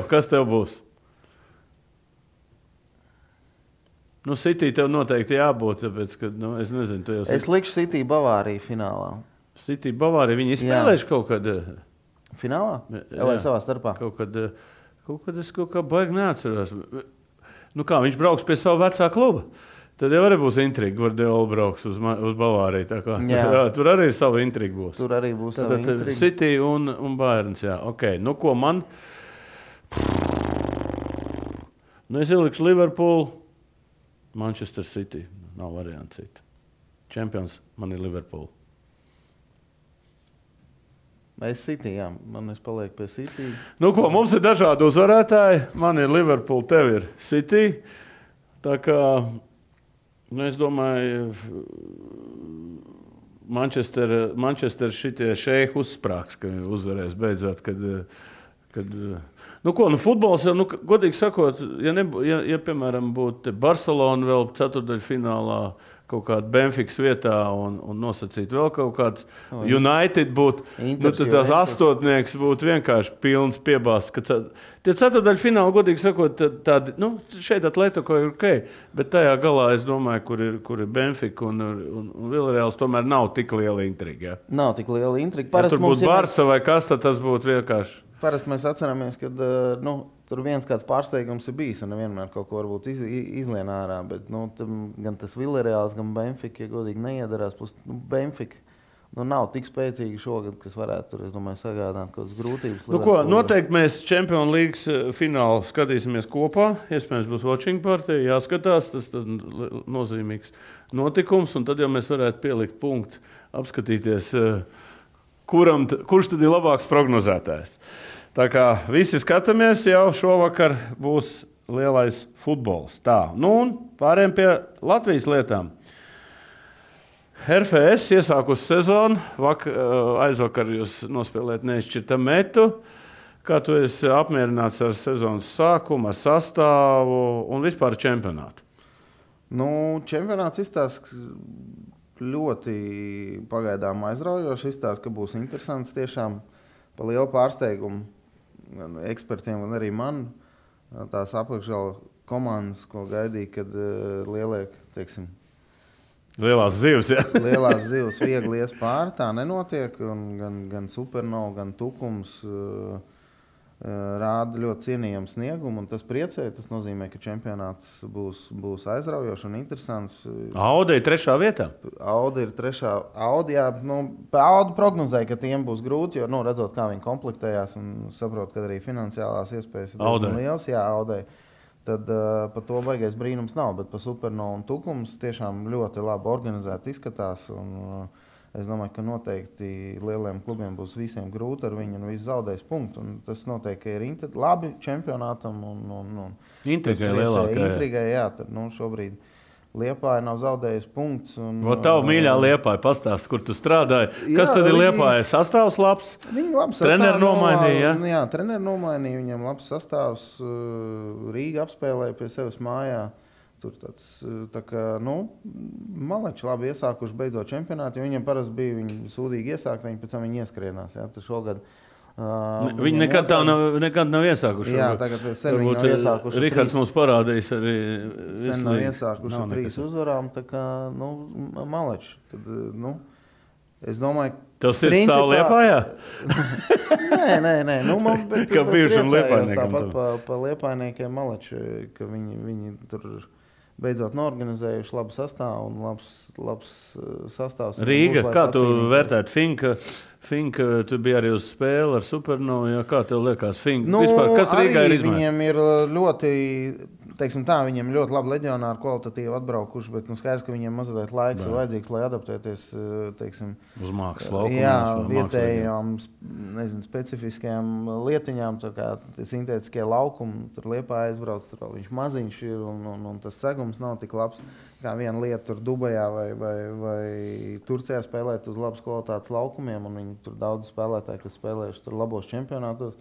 Kas tev būs? Nu, City tev noteikti jābūt, tāpēc, ka, nu, es nezinu, tu jau... Es likšu City Bavāriju finālā. City Bavārija, viņi izspēlējuši kaut kad... Finālā? Vai savā starpā? Kaut kad es kaut kā baigi neatceros. Nu kā, viņš brauks pie savu vecā kluba. Tad jau arī būs intriga, Guardiola brauks uz Bavāriju. Tā kā, tur arī savu intrigu būs. Tur arī būs savu intrigu. City un Bayerns, jā. Ok, nu ko man... Nu es ielikšu Liverpool, Manchester City. Nav variantu citu. Čempions man ir Liverpool. Es City, jā. Man es palieku pie City. Nu ko, mums ir dažādi uzvarētāji. Man ir Liverpool, tev ir City. Tā kā, nu es domāju, Manchester šitie šeihi uzsprāgs, ka uzvarēs beidzot, kad nu ko, nu futbols jau, nu godīgi sakot, ja piemēram būtu Barcelona vēl ceturtdaļfinālā, kaut kāda Benfikas vietā un nosacīt vēl kaut kāds United būtu, nu tad tās astotnieks būtu vienkārši pilns piebāsts. Tie ceturtdaļfināli, godīgi sakot, tādi, nu šeit Atletico ir ok, bet tajā galā es domāju, kur ir Benfika un Villarreals tomēr nav tik liela intriga. Ja? Nav tik liela intriga. Ja tur būtu Barsa vai kas, tad tas būtu vienkārši. Parasti mēs atceramies, ka tur viens kāds pārsteigums ir bijis un nevienmēr kaut ko varbūt izlien ārā, bet gan tas Villarreals, gan Benfika, ja godīgi neiedarās, plus Benfika nav tik spēcīgi šogad, kas varētu tur, es domāju, sagādāt kaut kādas grūtības. Nu ko, noteikti mēs Champions Leagues finālu skatīsimies kopā, iespējams būs watching party, jāskatās, tas nozīmīgs notikums, un tad jau mēs varētu pielikt punktu, apskatīties, kurš tad ir labāks prognozētājs. Tā kā visi skatāmies, jau šovakar būs lielais futbols. Tā, nu un pārējiem pie Latvijas lietām. RFS iesākusi sezonu, aizvakar jūs nospēlēt neizšķirta metu. Kā tu esi apmierināts ar sezonas sākumu, ar sastāvu un vispār čempionātu? Nu, čempionāts izstāsta ļoti pagaidām aizraujoši, izstāsta, ka būs interesants tiešām pa lielu pārsteigumu. Gan ekspertiem, gan arī man tās apakšgala komandas, ko gaidīja, kad lielie, teiksim, lielās zivs, ja? Lielās zivs viegli ies pāri, tā nenotiek, un gan Supernova, gan Tukums rāda ļoti cienījamu sniegumu, un tas priecē, tas nozīmē, ka čempionāts būs aizraujošs un interesants. Audi ir 3. vietā? Audi ir 3. Audi, jā, Audi prognozēja, ka tiem būs grūti, jo, redzot, kā viņi komplektējās un saprot, ka arī finansiālās iespējas ir liels, jā, Audi. Tad par to baigais brīnums nav, bet par Supernova un Tukums tiešām ļoti labi organizēti izskatās, un es domāju, ka noteikti lieliem klubiem būs visiem grūti ar viņu un viss zaudēs punktu. Un tas noteikti ir labi čempionātam. Intrigai lielākai. Intrigai, jā. Tad, šobrīd Liepāja nav zaudējis punkts. Tavu mīļā Liepāja pastāst, kur tu strādāji. Kas tad ir Liepāja? Sastāvs labs? Viņi labs treneri nomainīja, ja? Jā, treneri nomainīja. Viņam labs sastāvs. Rīga apspēlēja pie sevis mājā. Tur tāds, tā kā, maleči labi iesākuši beidzot čempionātu, jo viņiem parasti bija viņi sūdīgi iesākt, viņi pēc tam viņi ieskrienās. Ja? Tas šogad, viņi nekad nav iesākuši. Jā, tagad sen viņi nav iesākuši. Rihards mums parādījis arī. Sen nav iesākuši 3 uzvarām, tā kā, maleči. Tad, es domāju, tev sirds stāv Liepājā? Nē. Bet, kā bijušam Liepājniekam. Tāpat pa Liepājniekiem maleči, ka viņi tur beidzot norganizējuši labu sastāvu un labs sastāvs. Rīga, kā tu vērtētu Finka, tu biji arī uz spēli ar Supernovu, ja? Kā tev liekas Finka? Vispār, kas Rīgā ir izmaiņas? Viņiem ir ļoti, teiksim tā, viņiem ļoti labi leģionāri kvalitatīvi atbraukuši, bet skaidrs, ka viņiem mazliet laiks ir vajadzīgs, lai adaptēties, teiksim, uz mākslas laukumiem. Jā, vietējām, specifiskajām lietiņām, tā kā sintētiskie laukumi, tur Liepā aizbrauc, tur viņš maziņš ir un tas segums nav tik labs. Kā viena lieta tur Dubajā vai Turcijā spēlēt uz labas kvalitātes laukumiem, un viņi tur daudz spēlētāji, kas spēlējuši tur labos čempionātos.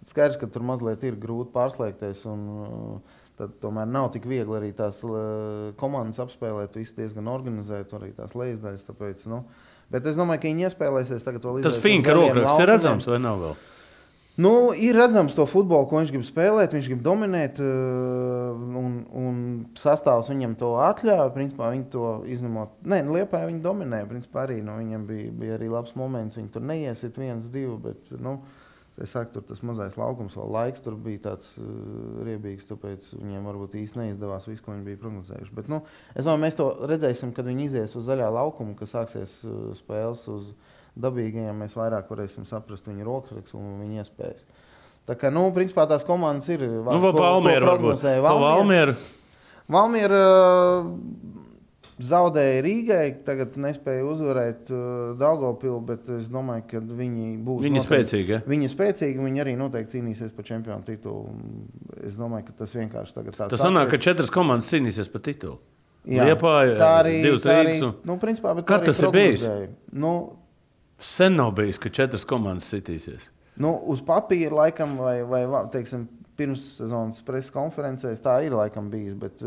Skaidrs, ka tur mazliet ir grūti pārslēgties, un tad tomēr nav tik viegli arī tās komandas apspēlēt, visu diezgan organizēt, arī tās lejasdaļas, tāpēc, Bet es domāju, ka viņi iespēlēsies tagad vēl Tas Finka rokraksts ir redzams vai nav vēl? Ir redzams to futbolu, ko viņš grib spēlēt, viņš grib dominēt, un sastāvs viņam to atļauj. Principā viņi to izņemot. Liepā viņi dominēja, principā arī, viņam bija arī labs moments, viņi tur neiesit 1-2, bet, es saku, tur tas mazais laukums, vēl laiks tur bija tāds riebīgs, tāpēc viņiem varbūt īsti neizdevās visu, ko viņi bija prognozējuši. Bet, es domāju, mēs to redzēsim, kad viņi izies uz zaļā laukumu, kad sāksies spēles uz dabīgajiem, mēs vairāk varēsim saprast viņa rokrakstu un viņa iespējas. Tā kā, principā tās komandas ir... Valmiera zaudēja Rīgai, tagad nespēja uzvarēt Daugavpilu, bet es domāju, ka viņi būs... Viņi spēcīgi, ja? Viņi spēcīgi, viņi arī noteikti cīnīsies par čempionu titulu. Es domāju, ka tas vienkārši tagad tā... Tas sanāk, ka 4 komandas cīnīsies par titulu. Jā, Liepāja, tā arī... 2 Rīgas un... principā, bet Kad tas ir bijis? Sen nav bijis, ka 4 komandas sitīsies. Uz papīra laikam vai teiksim, pirms sezonas preses konferencēs tā ir laikam bijis, bet...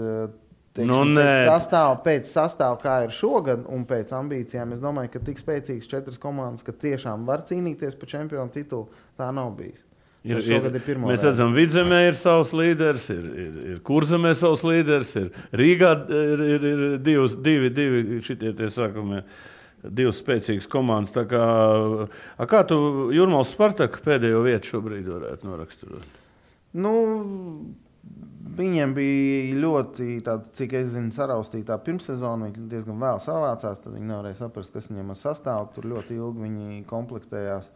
Pēc sastāva, kā ir šogad, un pēc ambīcijām, es domāju, ka tik spēcīgs 4 komandas, ka tiešām var cīnīties par čempionu titulu, tā nav bijis. Mēs redzam, Vidzemē ir savs līderis, ir Kurzemē savs līderis, ir Rīgā ir divi šitie tie sākumie, 2 spēcīgas komandas. Tā kā tu Jūrmālas Spartaku pēdējo vietu šobrīd varētu noraksturot? Viņiem bija ļoti, cik es zinu, saraustītā pirmssezona. Viņi diezgan vēl savācās, tad viņi nevarēja saprast, kas viņiem ar sastāvu. Tur ļoti ilgi viņi komplektējās.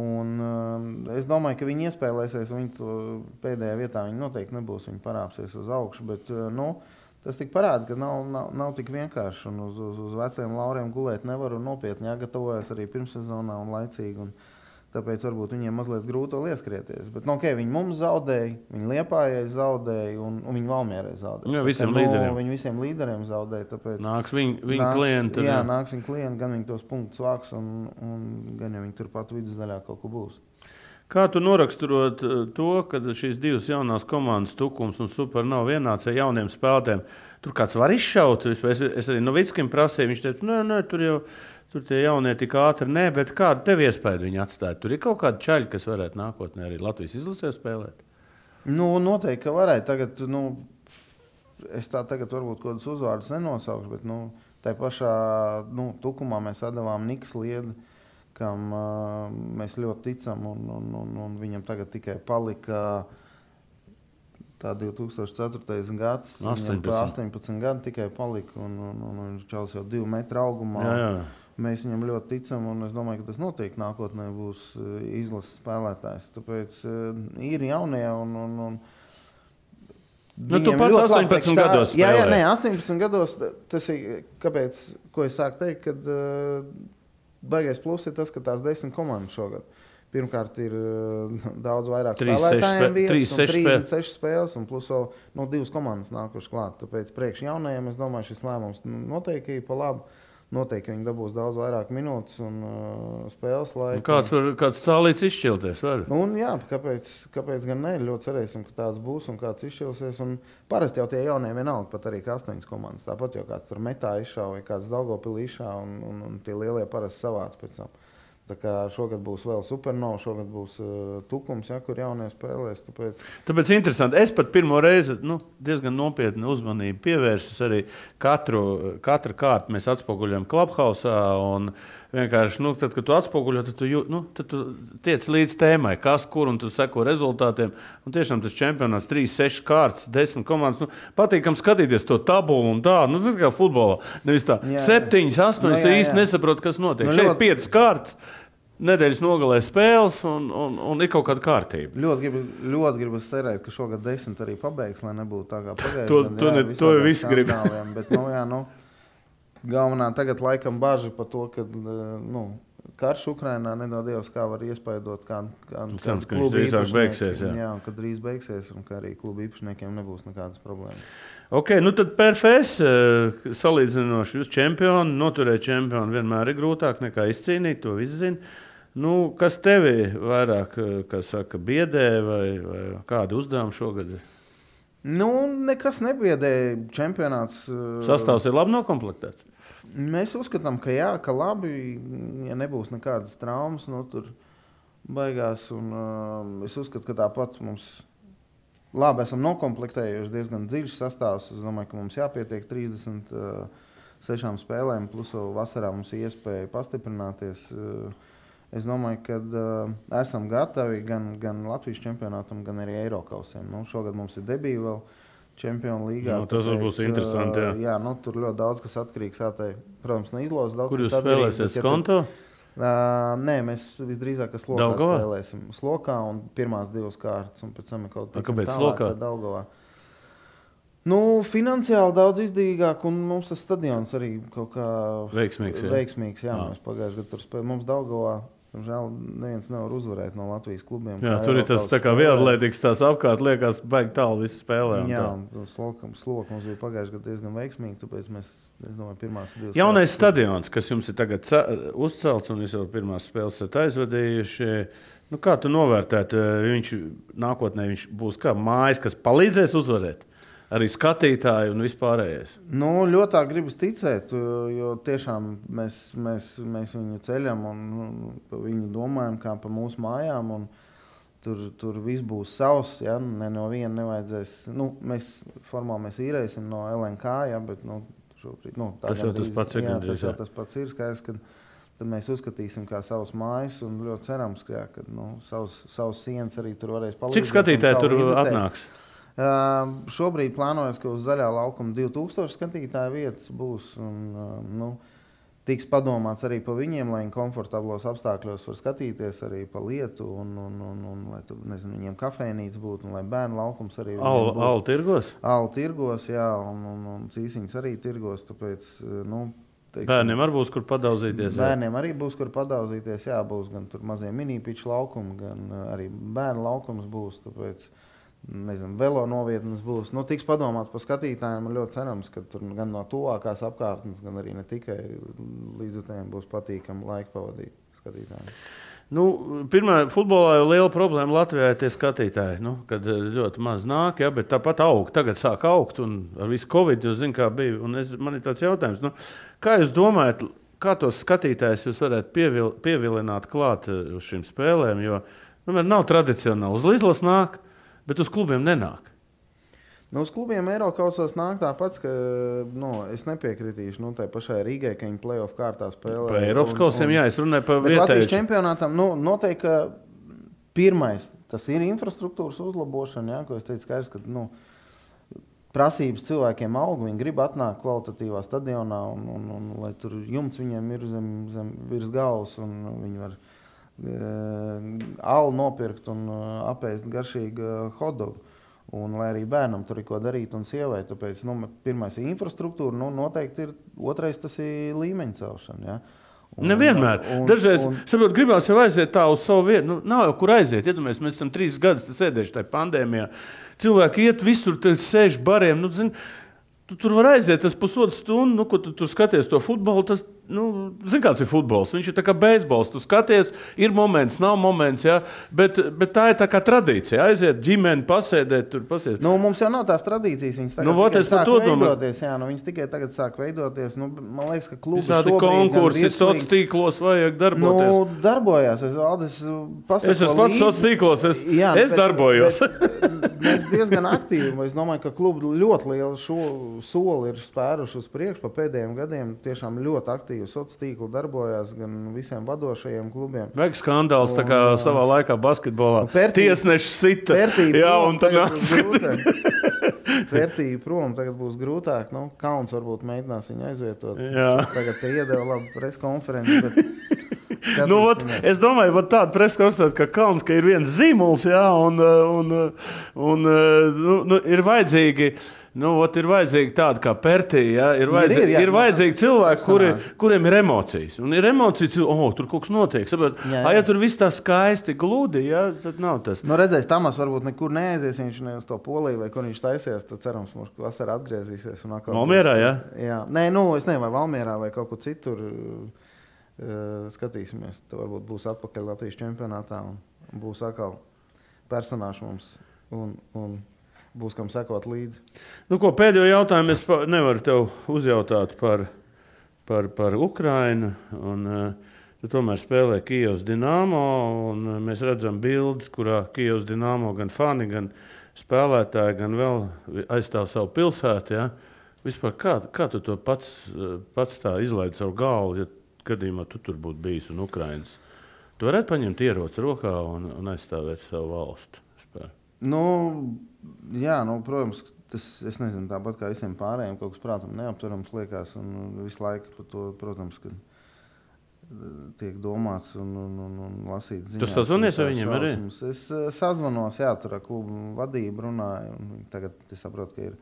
Un es domāju, ka viņi iespēlēsies, un viņi to pēdējā vietā viņi noteikti nebūs. Viņi parāpsies uz augšu, bet tas tik parāda, ka nav tik vienkārši. Un uz veciem lauriem gulēt nevar un nopietni jāgatavojas arī pirmssezonā un laicīgi. Un tāpēc varbūt viņiem mazliet grūti vēl ieskrieties. Bet, viņi mums zaudēja, viņi Liepājai zaudēja un viņi Valmierai zaudēja. Jā, visiem līderiem. Viņi visiem līderiem zaudēja. Tāpēc nāks viņa klienti. Jā, nāks viņa klienti, gan viņi tos punktus vāks un gan jau viņi turpat vidusdaļā kaut ko būs. Kā tu noraksturot to, ka šīs 2 jaunās komandas Tukums un Super nav vienāds ar jauniem spēlētājiem? Tur kāds var izšaut? Es arī Novickim prasīju, viņš teica, nē, tur tie jaunie tik ātri, bet kādu tev iespēju viņi atstāja? Tur ir kaut kādi čaļi, kas varētu nākotnē arī Latvijas izlasē spēlēt? Noteikti, ka varētu. Tagad, es tā tagad varbūt kādus uzvārdus nenosaukšu, bet tā pašā Tukumā mēs atdevām Nikas Liedi, kam mēs ļoti ticam, un viņam tagad tikai palika tā 2004. gads. 18 gadi tikai palika, un viņš čals jau 2 metru augumā. Jā. Mēs viņam ļoti ticam, un es domāju, ka tas noteikti nākotnē būs izlases spēlētājs. Tāpēc ir jaunie, un tu pats 18 gados spēlēji. Jā, 18 gados. Tas ir, kāpēc, ko es sāku teikt, kad baigais plus ir tas, ka tās 10 komandas šogad. Pirmkārt ir daudz vairāk spēlētājiem vietas, 36 spēles, un plus vēl 2 komandas nākuši klāt. Tāpēc priekš jaunajiem, es domāju, šis lēmums noteikti ir pa labu. Noteikti viņi dabūs daudz vairāk minūtes un spēles laiku. Kāds cālīts izšķilties var? Jā, kāpēc gan ne? Ļoti cerēsim, ka tāds būs un kāds izšķilsies. Un parasti jau tie jaunie vienalga, pat arī 8 komandas. Tāpat jau kāds tur metā izšāva vai kāds Daugavpilī izšāva un tie lielie parasti savāc pēc tam. Tā kā šogad būs vēl Supernova, šogad būs Tukums, kur jaunie spēlēs. Tāpēc interesanti. Es pat pirmo reizi diezgan nopietni uzmanību pievērsis arī katru kārtu mēs atspoguļojam Clubhouse un vienkārši, tad, kad tu atspoguļo, tad tu tiec līdz tēmai, kas, kur, un tu seko rezultātiem. Un tiešām tas čempionāts 3-6 kārtas, 10 komandas. Patīkam skatīties to tabulu un tā. Tas kā futbolā. Nevis tā 7, 8, īsti nesaprot, kas notiek. Šeit 5 kārtas. nedēļas nogalē spēles un ir kaut kāda kārtība. Ļoti gribu cerēt, ka šogad 10 arī pabeigs, lai nebūtu tā kā pagājušajā. To visi grib. Bet, galvenā tagad laikam baži par to, ka karš Ukrainā nedod Dievs, kā var iespaidot, kā klubu īpašniekiem. Jā, kad drīz beigsies un ka arī klubu īpašniekiem nebūs nekādas problēmas. Ok, tad PFS salīdzinoši jūs čempioni, noturēt čempionu vienmēr ir grūtāk nekā izcīnīt, to visi zina. Kas tevi vairāk, biedē vai kādi uzdevumi šogad? Nekas nebiedē. Čempionāts. Sastāvs ir labi nokomplektēts? Mēs uzskatām, ka jā, ka labi, ja nebūs nekādas traumas, tur baigās. Es uzskatu, ka tāpat mums labi esam nokomplektējuši diezgan dziļš sastāvs. Es domāju, ka mums jāpietiek 36 spēlēm, plus vēl vasarā mums ir iespēja pastiprināties. Es domāju, ka esam gatavi gan Latvijas čempionātam, gan arī Eirokausiem. Šogad mums ir debija vēl Čempionu līgā. Tas būs interesanti. Jā, tur ļoti daudz kas atkarīgs. Protams, no izlozes daudz. Kur jūs spēlēsiet? Skonto? Nē, mēs visdrīzāk Slokā spēlēsim. Slokā un pirmās 2 kārtas. Un pēc tam kaut kāpēc Slokā? Daugavā. Finansiāli daudz izdevīgāk, un mums tas stadions arī kaut kā veiksmīgs. Jā, mēs pagājušajā gadā tur spēlējām. Mums Daugavā, žēl, neviens nevar uzvarēt no Latvijas klubiem. Jā, tur ir tas tā kā vieglatlētikas tās apkārt, liekas, baigi tālu visi spēlē. Jā, un Sloka mums bija pagājušajā gadā diezgan veiksmīgi, tāpēc mēs, es domāju, pirmās 2 jaunais stadions, kas jums ir tagad uzcelts, un jūs jau pirmās spēles esat aizvadījuši. Kā tu novērtētu, nākotnē viņš būs kā mājas, kas palīdzēs uzvarēt? Arī skatītāji un vispārējais. Ļoti gribas ticēt, jo tiešām mēs viņu ceļam un viņu domājam kā pa mūsu mājām. Tur viss būs savs, ja? No viena nevajadzēs. Mēs īrēsim no LNK, ja? Bet šobrīd, tas jau tas pats ir. Tas pats ir skaidrs, ka tad mēs uzskatīsim kā savas mājas un ļoti cerams, ka savas sienas arī tur varēs palīdzēt. Cik skatītāji tur atnāks? Šobrīd plānojas, ka uz zaļā laukuma 2000 skatītāju vietas būs. Tiks padomāts arī par viņiem, lai viņi komfortablos apstākļos var skatīties arī pa lietu un lai tur, viņiem kafejnīca būtu un lai bērnu laukums arī būtu. Alu tirgos? Alu tirgos, jā, un cīsiņas arī tirgos, tāpēc, bērniem arī būs, kur padauzīties? Bērniem arī būs, kur padauzīties, jā, būs gan tur mazie mini-piču laukumi, gan arī bērnu laukums būs, tāpēc velo novietnes būs. Tiks padomāts par skatītājiem un ļoti cerams, ka tur gan no tuvākās apkārtnes, gan arī ne tikai līdzjutējiem būs patīkami laika pavadīt skatītājiem. Pirmā futbolā jau liela problēma Latvijā ir tie skatītāji, kad ļoti maz nāk, ja, bet tāpat aug. Tagad sāk augt un ar visu Covid, jūs zināt, kā bija. Un man ir tāds jautājums, kā jūs domājat, kā tos skatītājus jūs varētu pievilināt klāt uz šīm spēlēm, jo nav tradicionāli. Uz izlases nāk, bet uz klubiem nenāk. Uz klubiem Eirokausos nāk tāpats, ka es nepiekritīšu tai pašai Rīgai, ka viņi play-off kārtā spēlē. Pa Eiropas kausiem, jā, es runāju par vietēju. Latvijas čempionātam noteikti, ka pirmais, tas ir infrastruktūras uzlabošana, jā, ko es teicu, skaidrs, ka prasības cilvēkiem aug, viņi grib atnākt kvalitatīvā stadionā un lai tur jumts viņiem ir zem virs galvas un viņi var alu nopirkt un apēst garšīgu hotdogu. Un lai arī bērnam tur ir ko darīt un sievai. Tāpēc pirmais ir infrastruktūra, noteikti ir otrais tas ir līmeņa celšana. Ja? Nevienmēr. Dažreiz, saprot, gribās jau aiziet tā uz savu vietu. Nav jau kur aiziet. Iedomājies, mēs esam 3 gadus sēdējuši tajā pandēmijā. Cilvēki iet visur, sēž bariem. Tu tur var aiziet tas pusotru stundu, ko tu tur skaties to futbolu. Tas, kāds ir futbols? Viņš ir tā kā beisbols. Tu skaties, ir moments, nav moments, ja? bet tā ir tā kā tradīcija. Aiziet ģimeni, pasēdēt, tur pasēdēt. Mums jau nav tās tradīcijas. Viņas tagad sāk veidoties. Jā, viņas tikai tagad sāk veidoties. Man liekas, ka klubi šobrīd konkursi, sociālos tīklos vajag darboties. Darbojās. Es esmu pats sociālos tīklos. Es darbojos. Mēs diezgan aktīvi. Es domāju, ka klubi ļoti lielu soli ir spēruši uz priekšu pa pēdējiem gadiem. Tiešām ļoti aktīvi sociālos tīkli darbojās gan visiem vadošajiem klubiem. Vajag skandāls, tā kā savā laikā basketbolā. Tiesneši sita. Jā, un tagad Vērtība prom tagad būs grūtāk. Kauns varbūt mēģinās viņu aizvietot. Jā. Tagad te iedeva labu preskonferenci, bet Es domāju, tāda preskonstatēta, ka Kalns, ka ir viens zīmols, jā, un ir vajadzīgi. Ir vajadzīgi tādi kā Pertija, ir vajadzīgi cilvēki, kuriem ir emocijas. Un ir emocijas, tur kaut kas notiek. Ja tur viss tā skaisti gludi, tad nav tas. Redzēs, Tamas varbūt nekur neaizies, viņš ne uz to Poliju vai kur viņš taisies, tad cerams, mums vasarā atgriezīsies. Valmierā, jā? Jā. Nē, es nezinu, vai Valmierā vai kaut kur citur skatīsimies. Tad varbūt būs atpakaļ Latvijas čempionātā un būs atkal personāši mums un būs kam sekot līdzi. Pēdējo jautājumu es nevaru tev uzjautāt par Ukrainu. Tu tomēr spēlē Kijevas Dinamo, un mēs redzam bildes, kurā Kijevas Dinamo gan fani, gan spēlētāji, gan vēl aizstāv savu pilsētu. Ja? Vispār, kā tu to pats tā izlaidi savu galvu, ja gadījumā tu tur būtu bijis un Ukrainas? Tu varētu paņemt ieroci rokā un aizstāvēt savu valstu? Protams, tas, es nezinu, tāpat kā visiem pārējiem, kaut kas prātam neaptverams liekas, un visu laiku par to, protams, ka tiek domāts un lasīts ziņās. Tu sazvanies ar viņiem arī? Es sazvanos, tur ar klubu vadību runāju, un tagad es saprotu, ka ir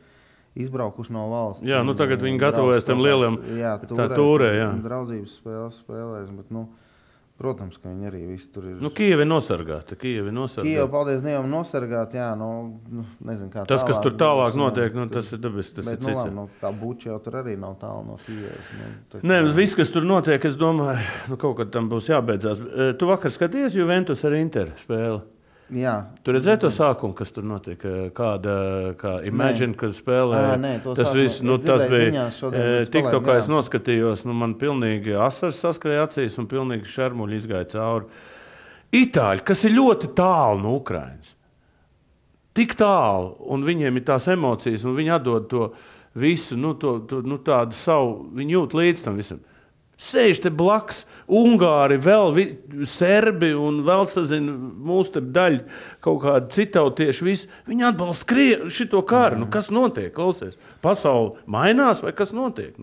izbraukuši no valsts. Jā, tagad viņi gatavojas tam lieliem tūrē, jā. Draudzības spēlēs, bet, protams, ka viņi arī visi tur ir. Kijevi nosargāti. Kijevi, paldies Dievam, nosargāti, jā, nezinu, kā tas, kas tur tālāk notiek, tas ir dabis, tas bet, ir cits. Tā Buča jau tur arī nav tālu no Kijevas. Nē, viss, kas tur notiek, es domāju, kaut kad tam būs jābeidzās. Tu vakar skaties Juventus ar Interu spēli? Jā. Tu redzēji to sākumu, kas tur notiek? Kā Imagine, kad spēlē? Tas viss, tas bija TikTokā, es noskatījos, man pilnīgi asars saskrēja acīs un pilnīgi šarmuļi izgāja cauri. Itāļi, kas ir ļoti tālu no Ukrainas. Tik tālu, un viņiem ir tās emocijas, un viņi atdod to visu, tādu savu, viņi jūt līdz tam visam. Sēž te blaks, Ungāri, vēl serbi un vēl sazina mūsu te daļu kaut kādi citautieši, visi. Viņi atbalsta šito karu. Kas notiek, klausies? Pasauli mainās vai kas notiek?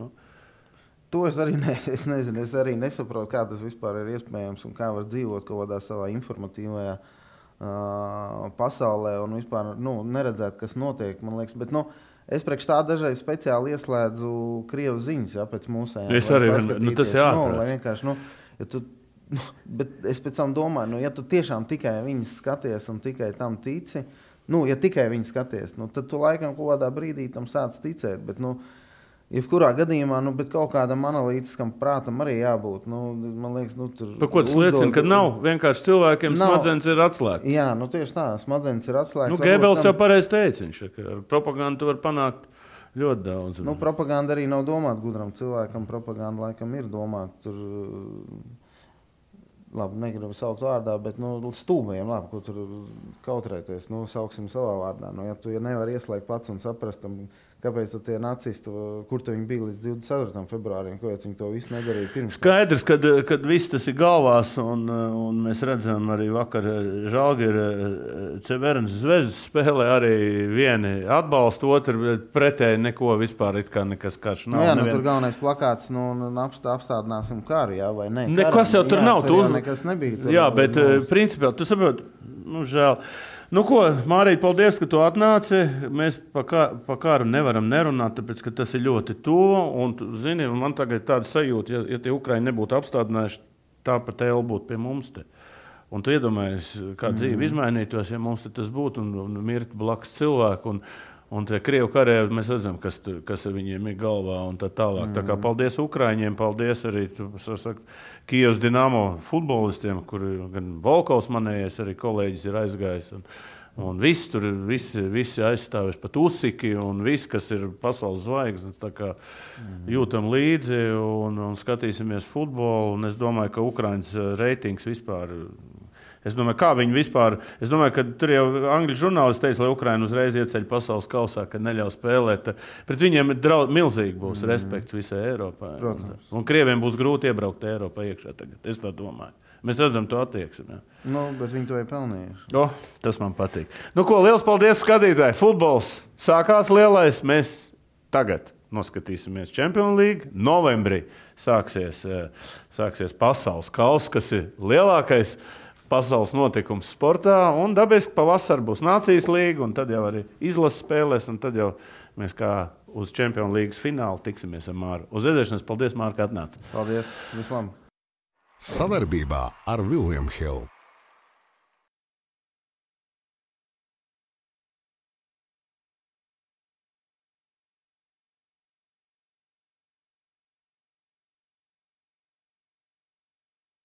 To es arī nezinu, es arī nesaprotu, kā tas vispār ir iespējams un kā var dzīvot kaut kādā savā informatīvajā pasaulē un vispār neredzēt, kas notiek, man liekas. Bet, es priekš tā dažreiz speciāli ieslēdzu Krievas ziņas, pēc mūsējām. Es arī, tas jāatrast. Vienkārši, bet es pēc tam domāju, ja tu tiešām tikai viņas skaties un tikai tam tici, ja tikai viņas skaties, tad tu laikam kaut kādā brīdī tam sāc ticēt, bet, jebkurā gadījumā, bet kaut kādam analītiskam prātam arī jābūt. Man liekas, tur... Par ko tas liecina, ka nav? Vienkārši cilvēkiem smadzenes ir atslēgts. Jā, tieši tā, smadzenes ir atslēgts. Gēbels jau pareizi teica, viņš, ka propagandu tu var panākt ļoti daudz. Propaganda arī nav domāta gudram cilvēkam, propaganda laikam ir domāta tur... Labi, negribu saukt vārdā, bet stūmiem, ko tur kautrēties, sauksim savā vārdā. Ja nevar ieslēgt pats un saprast, kāpēc tie nacisti, kur viņi bija līdz 24. februārim, kāpēc viņi to visu nedarīja pirms. Skaidrs, kad viss tas ir galvās, un mēs redzam arī vakar Žalgiris Cevernas Zvezdas spēlē arī vieni atbalsta, otru pretēji neko vispār it kā nekas karš nav. Tur galvenais plakāts, apstādināsim karu, jā, vai ne? Nekas jau tur nav. Tur nekas nebija. Jā, bet principā, tu saproti, žēl. Mārīt, paldies, ka tu atnāci. Mēs pa kāru nevaram nerunāt, tāpēc, ka tas ir ļoti tuvu. Un, zini, man tagad tāda sajūta, ja tie Ukraiņi nebūtu apstādinājuši, tāpat vēl būtu pie mums te. Un tu iedomājies, kā dzīve izmainītos, ja mums tas būtu un mirt blakus cilvēku. Un tie Krievu karēvi, mēs redzam, kas viņiem ir galvā un tā tālāk. Tā kā paldies Ukraiņiem, paldies arī Kijevas Dinamo futbolistiem, kur gan Volkovs manējais, arī kolēģis ir aizgājis. Un visi aizstāvēs, pat Usiki un viss, kas ir pasaules zvaigznes. Tā kā jūtam līdzi un skatīsimies futbolu. Un es domāju, ka Ukraiņas reitings vispār... Es domāju, kā viņi vispār... Es domāju, ka tur jau angļu žurnālisti teica, lai Ukraina uzreiz ieceļ pasaules kausā, ka neļauj spēlēt. Pret viņiem milzīgi būs respekts visai Eiropā. Protams. Un Krieviem būs grūti iebraukt Eiropā iekšā tagad. Es tā domāju. Mēs redzam to attieksmi. Bet viņi to ir pelnījuši. Tas man patīk. Liels paldies skatītāji. Futbols sākās lielais. Mēs tagad. noskatīsimies Champions League. Novembrī sāksies pasaules kauss, kas ir lielākais pasaules notikums sportā. Un dabiski pavasarī būs Nācijas līga, un tad jau arī izlases spēlēs, un tad jau mēs kā uz Champions League finālu tiksimies ar Māru. Uz redzēšanos, paldies, Māri, ka atnāci. Paldies, vislabāk! Savarbībā ar William Hill.